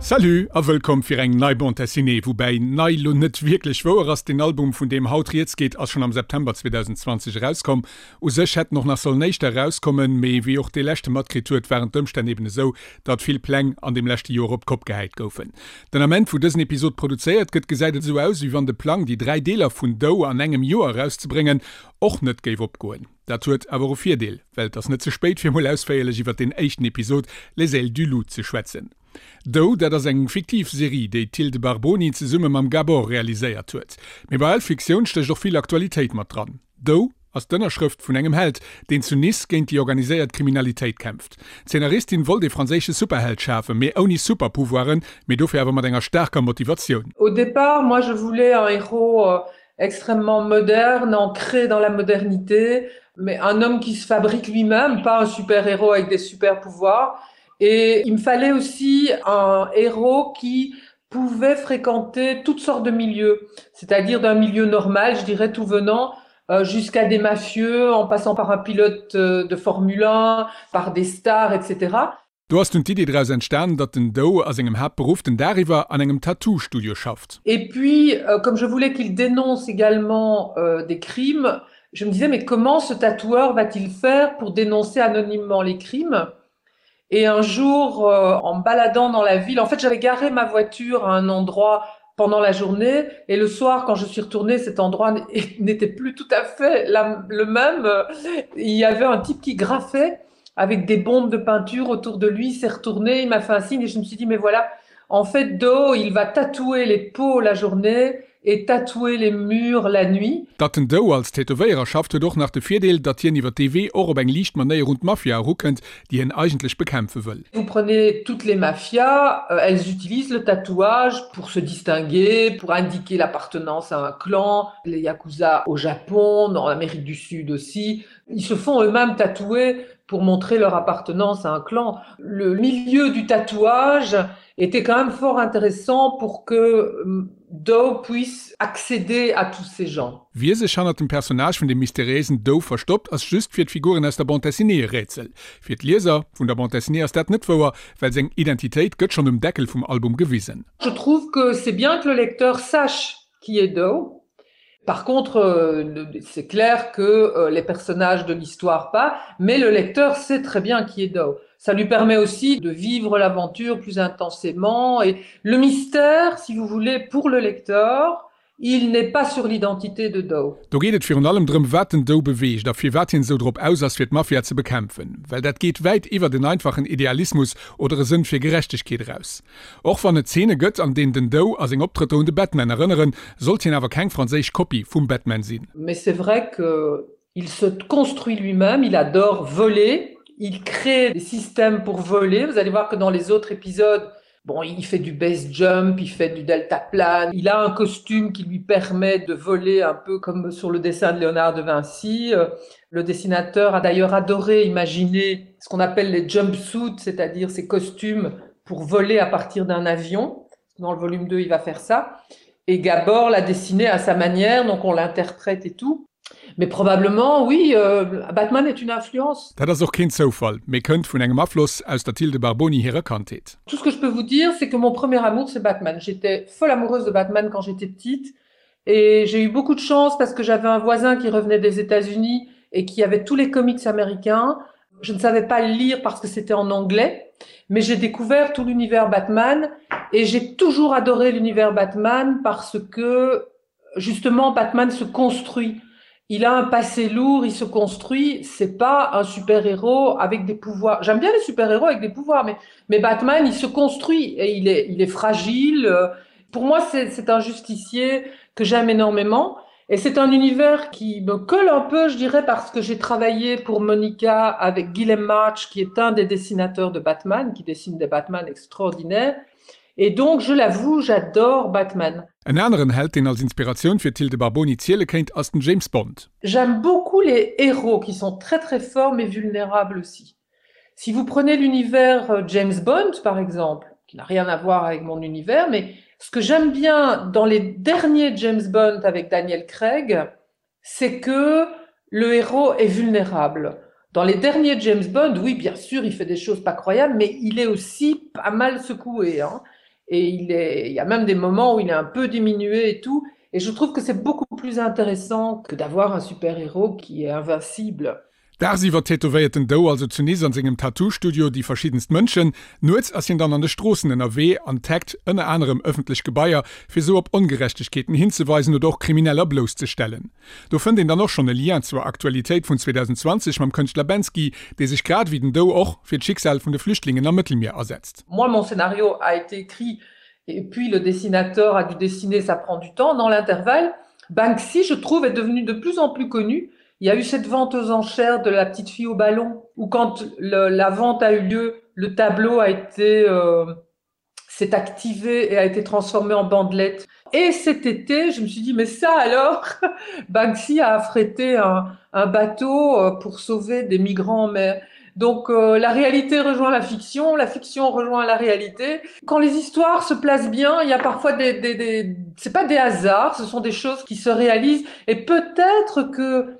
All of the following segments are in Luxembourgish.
Salut a wëllkomm fir eng nei Bande Dessinée, woubäi nei lo net wierklech wouer ass. Den Album vun deem haut rieds geet ass schonn am September 2020 erauskomm. U sech hätt en och nach sollen éischter erauskommen, mee wéi och dee leschte matkritt huet, waren d'Ëmstänn eben esou, datt vill Pläng an deem leschte Joer op d'Kopp gehäit goufen. Den Ament wou dësen Episod produzéiert gëtt, gesäit et esou aus, wéi wann de Plang déi 3 Deeler vun Doe an engem Joer erauszebréngen och net géif opgoen. Dat huet awer och e Virdeel, well et ass net ze spéit fir mol ausféierlech iwwert deen éischten Episod Les ailes du loup ze schwätzen. Doe, dat ass eng fiktiv Serie, déi d'Thilde Barboni zesumme mam Gabor realiséiert huet. Mee bei all Fiktioun stécht och vill Aktualitéit mat dran. Doe ass d'Ënnerschrëft vun engem Held, deen zu Nice géint déi organiséiert Kriminalitéit kämpft. D'Zeenaristin wollt ee franséische Superheld schafen, mee ouni Superpouvoiren, mee dofir awer mat enger staarker Motivatioun. Au départ, moi je voulais un héros extrêmement moderne, ancré dans la modernité, mais un homme qui se fabrique lui-même, pas un super-héros avec des super-pouvoirs. Et il me fallait aussi un héros qui pouvait fréquenter toutes sortes de milieux, c'est-à-dire d'un milieu normal, je dirais tout venant, euh, jusqu'à des mafieux, en passant par un pilote euh, de Formule 1, par des stars, etc. Do ass dunn d'Idee draus entstan, datt den Doe a sengem Haaptberuff den Dag iwwer an engem Tattoo-Studio schafft. Et puis, euh, comme je voulais qu'il dénonce également euh, des crimes, je me disais mais comment ce tatoueur va-t-il faire pour dénoncer anonymement les crimes? Et un jour, euh, en me baladant dans la ville, en fait j'avais garé ma voiture à un endroit pendant la journée et le soir quand je suis retournée, cet endroit n'était plus tout à fait la, le même. Il y avait un type qui graffait avec des bombes de peinture autour de lui, s'est retourné, il m'a fait un signe et je me suis dit mais voilà, en fait Do, il va tatouer les peaux la journée et tatouer les murs la nuit. Datt den Doe als Tätowéierer schafft, huet och nach de Virdeel, datt hien iwwer dee Wee och op eng liicht Manéier un d'Mafia erukënnt, déi hien eigentlech bekämpfe wëll. Vous prenez toutes les mafias, elles utilisent le tatouage pour se distinguer, pour indiquer l'appartenance à un clan, les yakuza au Japon, en Amérique du Sud aussi, ils se font eux-mêmes tatouer pour montrer leur appartenance à un clan. Le milieu du tatouage était quand même fort intéressant pour que Doe puisse accéder à tous ces gens. Wie sech hannert dem Personnage vun dem mysteriéisen Doe verstoppt, ass just fir d'Figuren aus der Bande dessinée e Rätsel. Fir d'Lieser vun der Bande dessinée ass dat net wouer, well seng Identitéit gëtt schonn um Deckel vum Album gewisen. Je trouve que c'est bien que le lecteur sache qui est Doe. Par contre, euh, c'est clair que euh, les personnages de l'histoire pas, mais le lecteur sait très bien qui est Doe. Ça lui permet aussi de vivre l'aventure plus intensément et le mystère, si vous voulez, pour le lecteur, il n'est pas sur l'identité de Doe. Do geet et virun allem drëm, wat den Doe beweegt a firwat hien esou drop aus ass, fir d'Mafia ze bekämpfen. Well dat geet wäit iwwert en einfachen Idealismus oder e Sënn fir Gerechtegkeet eraus. Och wann et Zeene gëtt, an deenen den Doe a seng Optrëtter un de Batman erënneren, sollt hien awer keng franséisch Kopie vum Batman sinn. Mais c'est vrai que il se construit lui-même, il adore voler, il crée des systèmes pour voler. Vous allez voir que dans les autres épisodes, bon, il fait du base jump, il fait du deltaplane, il a un costume qui lui permet de voler un peu comme sur le dessin de Léonard de Vinci. Le dessinateur a d'ailleurs adoré imaginer ce qu'on appelle les jumpsuits, c'est-à-dire ces costumes pour voler à partir d'un avion. Dans le volume 2, il va faire ça. Et Gabor l'a dessiné à sa manière, donc on l'interprète et tout. Mais probablement, oui, euh, Batman est une influence. Dat ass och keen Zoufall, mee kënnt vun engem Afloss aus der Thilde Barboni hirer Kandheet. Tout ce que je peux vous dire, c'est que mon premier amour, c'est Batman. J'étais folle amoureuse de Batman quand j'étais petite et j'ai eu beaucoup de chance parce que j'avais un voisin qui revenait des États-Unis et qui avait tous les comics américains. Je ne savais pas lire parce que c'était en anglais, mais j'ai découvert tout l'univers Batman et j'ai toujours adoré l'univers Batman parce que justement Batman se construit. Il a un passé lourd, il se construit, c'est pas un super-héros avec des pouvoirs. J'aime bien les super-héros avec des pouvoirs, mais, mais Batman, il se construit et il est, il est fragile. Pour moi, c'est un justicier que j'aime énormément. Et c'est un univers qui me colle un peu, je dirais, parce que j'ai travaillé pour Monica avec Guillem March, qui est un des dessinateurs de Batman, qui dessine des Batman extraordinaires. Et donc, je l'avoue, j'adore Batman. En aneren Held, deen als Inspiratioun fir d'Thilde Barboni ziele kéint, ass den James Bond. J'aime beaucoup les héros qui sont très très forts mais vulnérables aussi. Si vous prenez l'univers euh, James Bond par exemple, qui n'a rien à voir avec mon univers, mais ce que j'aime bien dans les derniers James Bond avec Daniel Craig, c'est que le héros est vulnérable. Dans les derniers James Bond, oui, bien sûr, il fait des choses pas croyables, mais il est aussi pas mal secoué. Hein. Et il est, il y a même des moments où il est un peu diminué et tout. Et je trouve que c'est beaucoup plus intéressant que d'avoir un super-héros qui est invincible. Dagsiwwer tätowéiert den Doe also zu Nice an sengem Tattoo-Studio déi verschiddenst Mënschen. Nuets ass hien dann an de Stroossen ënnerwee an taggt ënner anerem ëffentlech Gebaier, fir sou op Ongerechtegkeeten hinzeweisen oder och Krimineller blousszestellen. Do fënnt een dann och schonn e Lien zur Aktualitéit vun 2020 mam Kënschtler Bensky, dee sech grad ewéi den Doe och fir d'Schicksal vun de Flüchtlingen am Mëttelmier asetzt. Moi, mon scénario a été écrit et puis le dessinateur a dû dessiner, ça prend du temps. Dans l'intervalle, Banksy, je trouve, est devenu de plus en plus connu. Il y a eu cette vente aux enchères de la petite fille au ballon, où quand le, la vente a eu lieu, le tableau a été euh, s'est activé et a été transformé en bandelette. Et cet été, je me suis dit mais ça alors Banksy a affrété un, un bateau euh, pour sauver des migrants en mer. Donc euh, la réalité rejoint la fiction, la fiction rejoint la réalité. Quand les histoires se placent bien, il y a parfois des, des, des... c'est pas des hasards, ce sont des choses qui se réalisent et peut-être que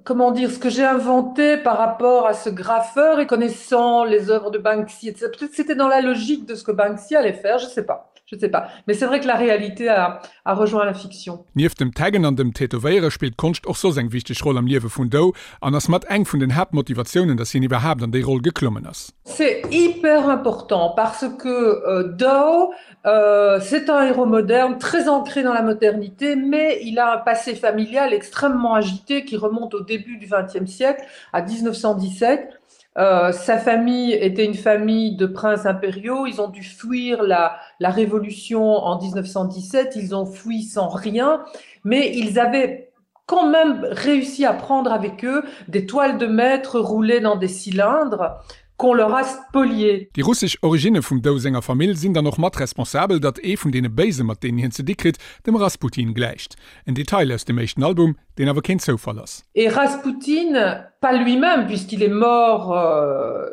comment dire ce que j'ai inventé par rapport à ce graffeur et connaissant les œuvres de Banksy etc. Peut-être c'était dans la logique de ce que Banksy allait faire, je sais pas. Je sais pas. Mais c'est vrai que la réalité a, a rejoint la fiction. Nieft dem Taggen an dem Tätowéiere spillt d'Konscht och soss eng wichteg Roll am Liewe vun Doe an ass mat eng vun den Haaptmotivatiounen, datt hien iwwerhaapt an déi Roll geklommen ass. C'est hyper important parce que euh, Doe, euh, c'est un héros moderne, très ancré dans la modernité, mais il a un passé familial extrêmement agité qui remonte au début du XXe siècle, à 1917. Euh, sa famille était une famille de princes impériaux. Ils ont dû fuir la, la révolution en 1917. Ils ont fui sans rien, mais ils avaient quand même réussi à prendre avec eux des toiles de maître roulées dans des cylindres qu'on leur a spolié. Déi russesch Originne vum Doe senger Famill sinn dann och mat responsabel, datt ee vun deene Béise mat deenen hien ze di kritt, dem Rasputin gläicht. En Detail aus dem éischten Album, deen awer keen Zoufall ass. Et Rasputin, pas lui-même puisqu'il est mort euh,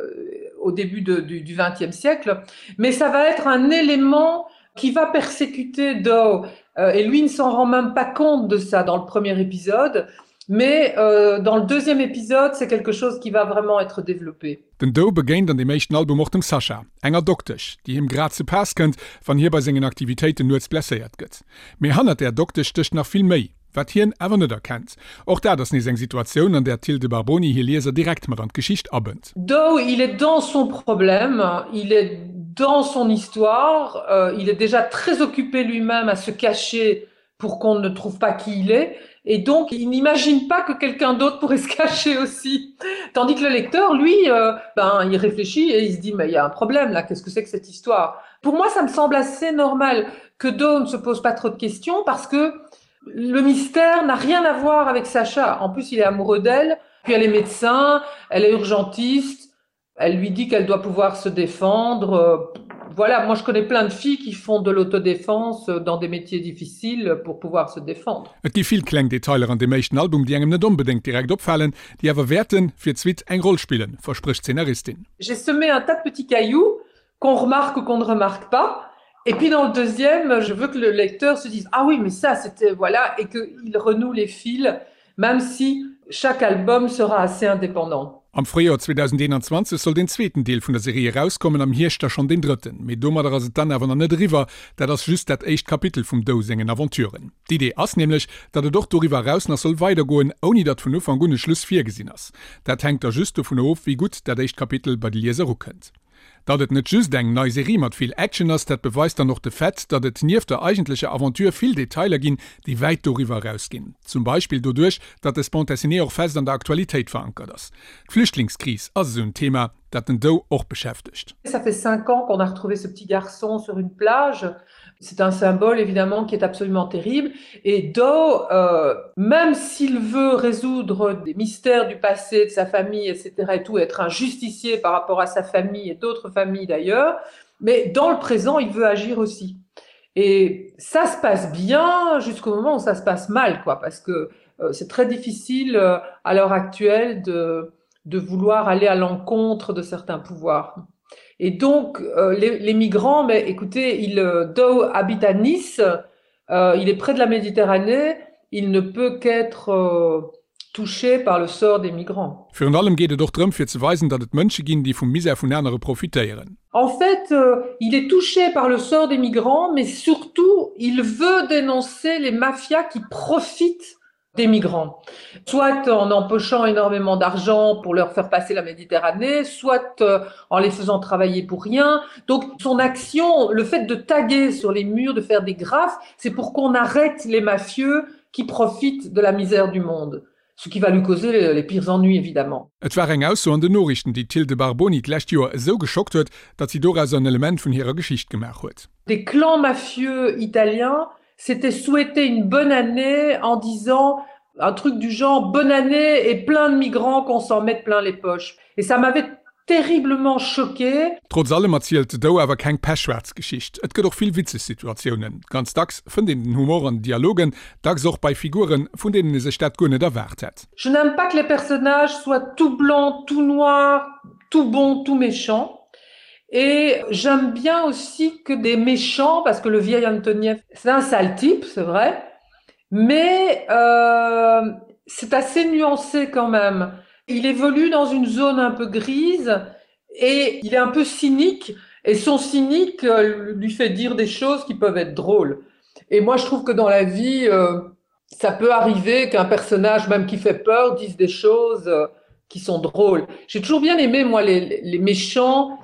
au début de, du, du XXe siècle, mais ça va être un élément qui va persécuter Doe. Euh, et lui ne s'en rend même pas compte de ça dans le premier épisode. Mais euh, dans le deuxième épisode, c'est quelque chose qui va vraiment être développé. Den Doe begéint an deem éischten Album och dem Sasha, enger Doktesch, déi him grad ze Paass kënnt, wann hie bei sengen Aktivitéiten nuets blesséiert gëtt. Mee hannert där Doktesch stécht nach vill méi, wat hien awer net erkennt. Och dat ass nees eng Situatioun, an där d'Hilde Barboni hir Lieser direkt mat an d'Geschicht abënnt. Doe, il est dans son problème, il est dans son histoire, euh, il est déjà très occupé lui-même à se cacher pour qu'on ne trouve pas qui il est. Et donc, il n'imagine pas que quelqu'un d'autre pourrait se cacher aussi. Tandis que le lecteur, lui, euh, ben, il réfléchit et il se dit, mais il y a un problème là, qu'est-ce que c'est que cette histoire Pour moi, ça me semble assez normal que Doe ne se pose pas trop de questions parce que le mystère n'a rien à voir avec Sacha. En plus, il est amoureux d'elle, puis elle est médecin, elle est urgentiste, elle lui dit qu'elle doit pouvoir se défendre. Euh, voilà, moi je connais plein de filles qui font de l'autodéfense dans des métiers difficiles pour pouvoir se défendre. Et gi vill kleng Detailer an deem éischten Album, déi engem net onbedéngt direkt opfalen, déi awer wäerten fir d'Suite eng Roll spillen, versprécht d'Zeenaristin. J'ai semé un tas de petits cailloux qu'on remarque ou qu'on ne remarque pas. Et puis dans le deuxième, je veux que le lecteur se dise ah oui, mais ça c'était voilà et qu'il renoue les fils, même si chaque album sera assez indépendant. Am Fréijoer 2021 soll deen zweeten Deel vun der Serie erauskommen, am Hierscht da schonn deen drëtten. Mee domadder ass et dann awer nach net eriwwer, dat ass just dat éischt Kapitel vum Doe sengen Aventuren. D'Idee ass nämlech, datt et och doriwwer eraus nach soll weidergoen, ouni datt vun Ufank un e Schluss virgesinn ass. Dat hänkt da just dovun of, wéi gutt dat éischt Kapitel bei de Lieser ukënnt. Datt et net just eng nei Serie mat vill Action ass, dat beweist dann och de Fait, datt et nieft der eigentlecher Aventure vill Detailer ginn, déi wäit doriwwer erausginn. Zum Beispill doduerch, datt des Bande dessinée och fest an der Aktualitéit verankert ass. D'Flüchtlingskris ass esou en Thema, dat den Doe och beschäftegt. Ça fait 5 ans qu'on a retrouvé ce petit garçon sur une plage. C'est un symbole évidemment qui est absolument terrible. Et Doe, euh, même s'il veut résoudre des mystères du passé de sa famille, etc. et tout, être un justicier par rapport à sa famille et d'autres familles d'ailleurs, mais dans le présent, il veut agir aussi. Et ça se passe bien jusqu'au moment où ça se passe mal, quoi, parce que euh, c'est très difficile euh, à l'heure actuelle de, de vouloir aller à l'encontre de certains pouvoirs. Et donc euh, les, les migrants, mais écoutez, il euh, Doe habite à Nice, euh, il est près de la Méditerranée, il ne peut qu'être euh, touché par le sort des migrants. Virun allem geet et och drëm fir ze weisen, datt et Mënsche ginn, déi vum Misär vun anere profitéieren. En fait, euh, il est touché par le sort des migrants, mais surtout, il veut dénoncer les mafias qui profitent des migrants. Soit en empochant énormément d'argent pour leur faire passer la Méditerranée, soit euh, en les faisant travailler pour rien. Donc son action, le fait de taguer sur les murs, de faire des graphes, c'est pour qu'on arrête les mafieux qui profitent de la misère du monde. Ce qui va lui causer les pires ennuis évidemment. Et war eng Ausso an den Noriichten, déi d'Hilde Barboni d'lescht Joer esou geschockt huet, datt si dorauser en Element vun hirer Geschicht gemaach huet. Des clans mafieux italiens s'étaient souhaité une bonne année en disant un truc du genre bonne année et plein de migrants qu'on s'en mette plein les poches. Et ça m'avait terriblement choquée. Trotz allem erzielt Doe awer keng pechschwaarz Geschicht. Et gëtt och vill witzeg Situatiounen. Ganz dacks fënnt een den Humor an den Dialogen, dacks och bei Figuren, vun deenen ee sech dat guer net erwaart hätt. Je n'aime pas que les personnages soient tout blancs, tout noirs, tout bons, tout méchants. Et j'aime bien aussi que des méchants, parce que le vieil Antoniev, c'est un sale type, c'est vrai, mais euh, c'est assez nuancé quand même. Il évolue dans une zone un peu grise et il est un peu cynique et son cynique euh, lui fait dire des choses qui peuvent être drôles. Et moi je trouve que dans la vie euh, ça peut arriver qu'un personnage même qui fait peur dise des choses euh, qui sont drôles. J'ai toujours bien aimé moi les, les méchants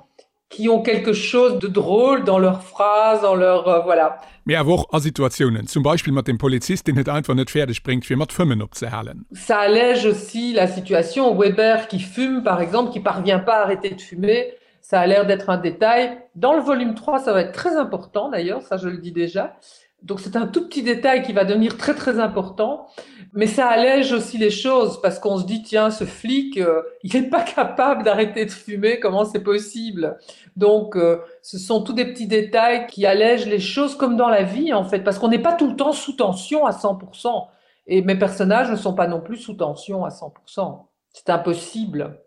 qui ont quelque chose de drôle dans leurs phrases, dans leur euh, voilà. Mee awer och a Situatiounen, zum Beispill mat dem Polizist, deen et einfach net fäerdeg bréngt, fir mat Fëmmen opzehalen. Ça allège aussi la situation. Weber qui fume par exemple, qui parvient pas à arrêter de fumer, ça a l'air d'être un détail. Dans le volume 3, ça va être très important d'ailleurs, ça je le dis déjà. Donc c'est un tout petit détail qui va devenir très très important, mais ça allège aussi les choses parce qu'on se dit tiens ce flic euh, il n'est pas capable d'arrêter de fumer, comment c'est possible? Donc euh, ce sont tous des petits détails qui allègent les choses comme dans la vie en fait parce qu'on n'est pas tout le temps sous tension à 100% et mes personnages ne sont pas non plus sous tension à 100%. C'est impossible.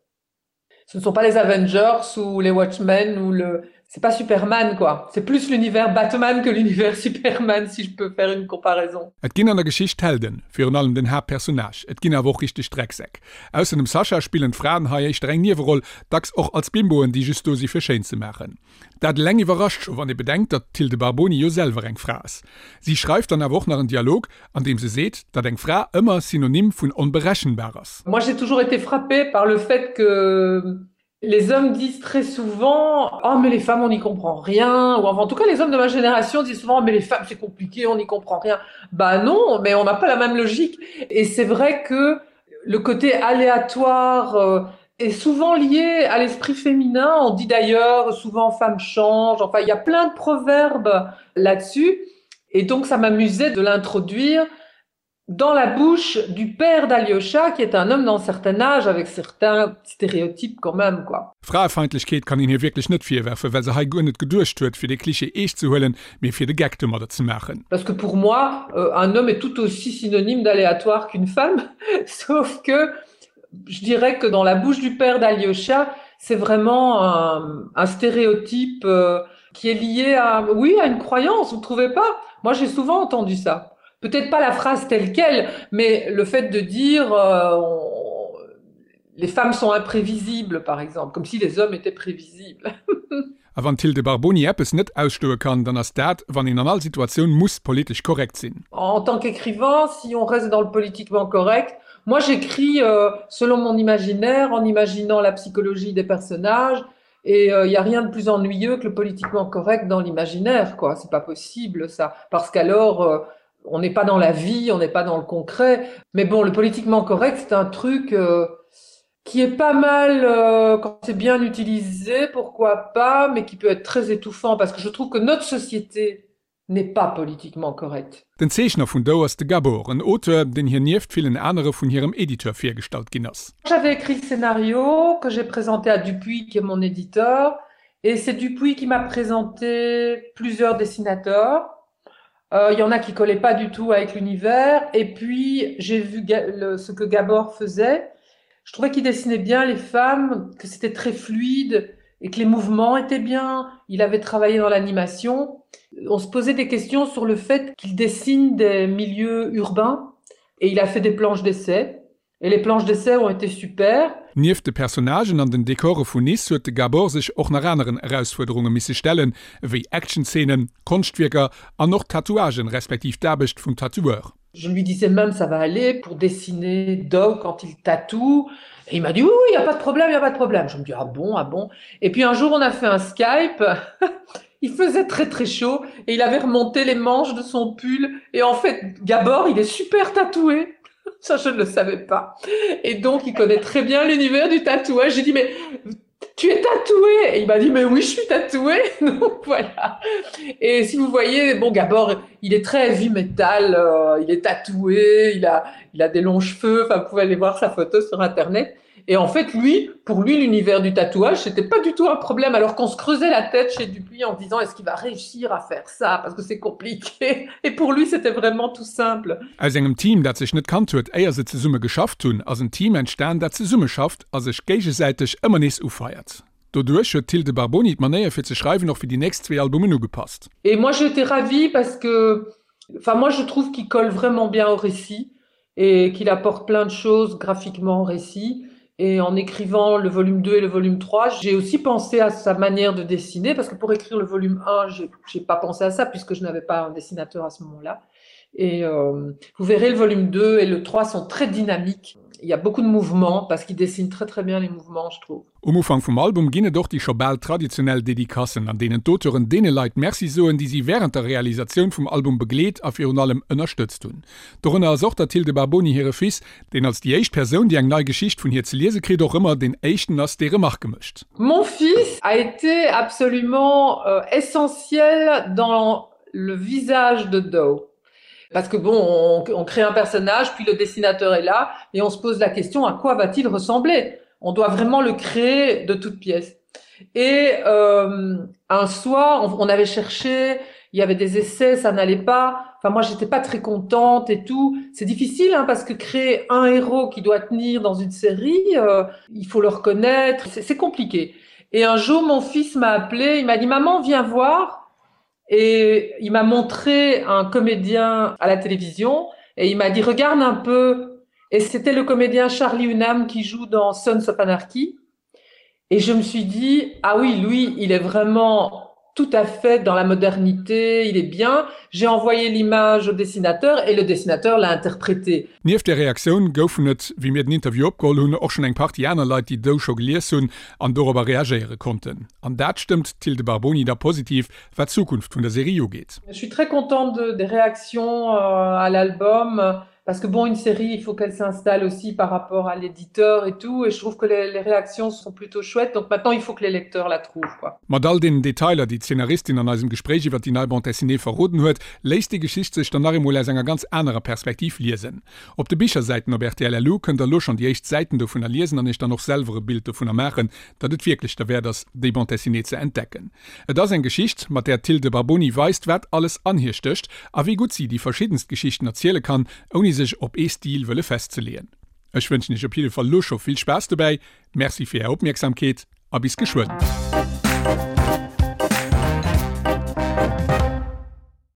Ce ne sont pas les Avengers ou les Watchmen ou le c'est pas Superman quoi. C'est plus l'univers Batman que l'univers Superman si je peux faire une comparaison. Et ginn an der Geschicht Helden, virun allem den Haaptpersonnage, et ginn awer och richteg Drecksäck. Ausser dem Sascha spillen d'Fraen hei éischter eng Nieweroll, dacks och als Bimboen, déi just do si fir schéin ze maachen. Dat eleng iwwerrascht scho wann ee bedenkt, datt d'Hilde Barboni jo selwer eng Fra ass. Si schreift dann awer och nach en Dialog, an deem se seet, datt eng Fra ëmmer Synonym vun onberechenbar ass. Moi j'ai toujours été frappée par le fait que les hommes disent très souvent oh mais les femmes on n'y comprend rien ou enfin en tout cas les hommes de ma génération disent souvent mais les femmes c'est compliqué on n'y comprend rien bah non mais on n'a pas la même logique et c'est vrai que le côté aléatoire euh, est souvent lié à l'esprit féminin on dit d'ailleurs souvent femme change enfin il y a plein de proverbes là-dessus et donc ça m'amusait de l'introduire dans la bouche du père d'Aliocha qui est un homme d'un certain âge avec certains stéréotypes quand même quoi. Fraefeindlechkeet kann een hir wierklech net virwerfen, well se hei guer net geduecht huet fir de Cliché eescht ze huelen, mee fir de Geck domadder ze maachen. Parce que pour moi euh, un homme est tout aussi synonyme d'aléatoire qu'une femme, sauf que je dirais que dans la bouche du père d'Aliocha, c'est vraiment un, un stéréotype euh, qui est lié à oui à une croyance, vous trouvez pas? Moi j'ai souvent entendu ça. Peut-être pas la phrase telle quelle, mais le fait de dire euh, on, les femmes sont imprévisibles par exemple, comme si les hommes étaient prévisibles. A wann d'Hilde Barboni eppes net ausstoe kann, dann ass dat, wann een an all Situatioun muss politesch korrekt sinn. En tant qu'écrivain, si on reste dans le politiquement correct, moi j'écris euh, selon mon imaginaire, en imaginant la psychologie des personnages, et il euh, n'y a rien de plus ennuyeux que le politiquement correct dans l'imaginaire, quoi. C'est pas possible ça, parce qu'alors euh, on n'est pas dans la vie, on n'est pas dans le concret. Mais bon, le politiquement correct, c'est un truc euh, qui est pas mal euh, quand c'est bien utilisé, pourquoi pas, mais qui peut être très étouffant parce que je trouve que notre société n'est pas politiquement correcte. Den Zeechner vun Doe ass de Gabor, en Auteur, deen hir nieft villen anere vun hirem Editeur virgestallt ginn ass. J'avais écrit le scénario que j'ai présenté à Dupuis qui est mon éditeur et c'est Dupuis qui m'a présenté plusieurs dessinateurs. Euh, il y en a qui collaient pas du tout avec l'univers et puis j'ai vu le, ce que Gabor faisait. Je trouvais qu'il dessinait bien les femmes, que c'était très fluide et que les mouvements étaient bien. Il avait travaillé dans l'animation. On se posait des questions sur le fait qu'il dessine des milieux urbains et il a fait des planches d'essai. Et les planches d'essai ont été super. Nieft de Personnagen an den Dekore vun Nice huet de Gabor sech och nach aneren Erausfuerderunge misse stellen, ewéi Actionzeenen, Konschtwierker an och Tatouagen, respektiv d'Aarbecht vum Tatoueur. Je lui disais même ça va aller pour dessiner Dow quand il tatoue et il m'a dit oui, oui, il y a pas de problème, il y a pas de problème. Je me dis ah bon, ah bon. Et puis un jour on a fait un Skype, il faisait très très chaud et il avait remonté les manches de son pull et en fait Gabor il est super tatoué. Ça je ne le savais pas. Et donc il connaît très bien l'univers du tatouage. J'ai dit mais tu es tatoué et il m'a dit mais oui je suis tatoué donc voilà et si vous voyez bon Gabor il est très heavy metal euh, il est tatoué il a il a des longs cheveux enfin vous pouvez aller voir sa photo sur internet et en fait lui pour lui l'univers du tatouage c'était pas du tout un problème alors qu'on se creusait la tête chez Dupuis en disant est-ce qu'il va réussir à faire ça parce que c'est compliqué et pour lui c'était vraiment tout simple Aus engem Team dat sech net kannt huet éier se zesumme geschafft hunn ass en Team entstan dat zesumme schafft a sech géigesäiteg ëmmer nees ufeiert. Doduerch huet d'Thilde Barboni d'Manéier fir ze schreiwen och fir déi nächst zwee Albumen ugepasst. Et moi j'ai été ravie parce que enfin moi je trouve qu'il colle vraiment bien au récit et qu'il apporte plein de choses graphiquement au récit et en écrivant le volume 2 et le volume 3 j'ai aussi pensé à sa manière de dessiner parce que pour écrire le volume 1 j'ai pas pensé à ça puisque je n'avais pas un dessinateur à ce moment-là et euh, vous verrez le volume 2 et le 3 sont très dynamiques il y a beaucoup de mouvements parce qu'il dessine très très bien les mouvements je trouve. Um Ufank vum Album ginn et och déi scho bal traditionell Dedicacen, an deenen d'Auteuren deene Leit Merci soen, déi si wärend der Realisatioun vum Album begleet a virun allem ënnerstëtzt hunn. Dorënner ass och der Tilde Barboni hire Fils, deen als déi éischt Persoun, déi eng nei Geschicht vun hir ze liese kritt, och ëmmer deen éischten ass, dee Remarke mécht. Mon fils a été absolument essentiel dans le visage de Doe. Parce que bon, on, on crée un personnage, puis le dessinateur est là, et on se pose la question à quoi va-t-il ressembler On doit vraiment le créer de toutes pièces. Et euh, un soir, on, on avait cherché, il y avait des essais, ça n'allait pas. Enfin, moi, j'étais pas très contente et tout. C'est difficile hein, parce que créer un héros qui doit tenir dans une série, euh, il faut le reconnaître, c'est compliqué. Et un jour, mon fils m'a appelé, il m'a dit maman, viens voir. Et il m'a montré un comédien à la télévision et il m'a dit regarde un peu. Et c'était le comédien Charlie Hunnam qui joue dans Sons of Anarchy. Et je me suis dit ah oui, lui, il est vraiment tout à fait dans la modernité, il est bien. J'ai envoyé l'image au dessinateur et le dessinateur l'a interprété. Nieft där Reaktioun goufen et, wéi mir den Interview opgeholl hunn, och schonn eng Partie aner Leit, déi Doe scho gelies hunn an dorobber reagéiere konnten. An dat stëmmt d'Thilde Barboni da positiv, wat d'Zukunft vun der Serie ugeet. Je suis très contente de, des réactions euh, à l'album parce que bon une série il faut qu'elle s'installe aussi par rapport à l'éditeur et tout et je trouve que les, les réactions sont plutôt chouettes donc maintenant il faut que les lecteurs la trouvent quoi. Mat all deenen Detailer, déi d'Szenaristin an eisem Gespréich iwwer déi nei Bande dessinée verroden huet, léisst déi Geschicht sech dann nach eemol aus enger ganz anerer Perspektiv liesen. Op de Bichersäiten op rtl LU kënnt der elo schonn déi éischt Säiten dovunner liesen an iech dann och selwer e Bild dovunner maachen, datt et wierklech derwäert ass, déi Bande dessinée ze entdecken. Et ass eng Geschicht, mat där d'Thilde Barboni weist, wat alles an hir stécht a wéi gutt si déi verschiddenst Geschichten erziele kann, ouni sech op ee Stil wëlle festzeleeën. Ech wënschen iech op jidde Fall elo scho vill Spaass dobäi, Merci fir är Opmierksamkeet a bis geschwënn.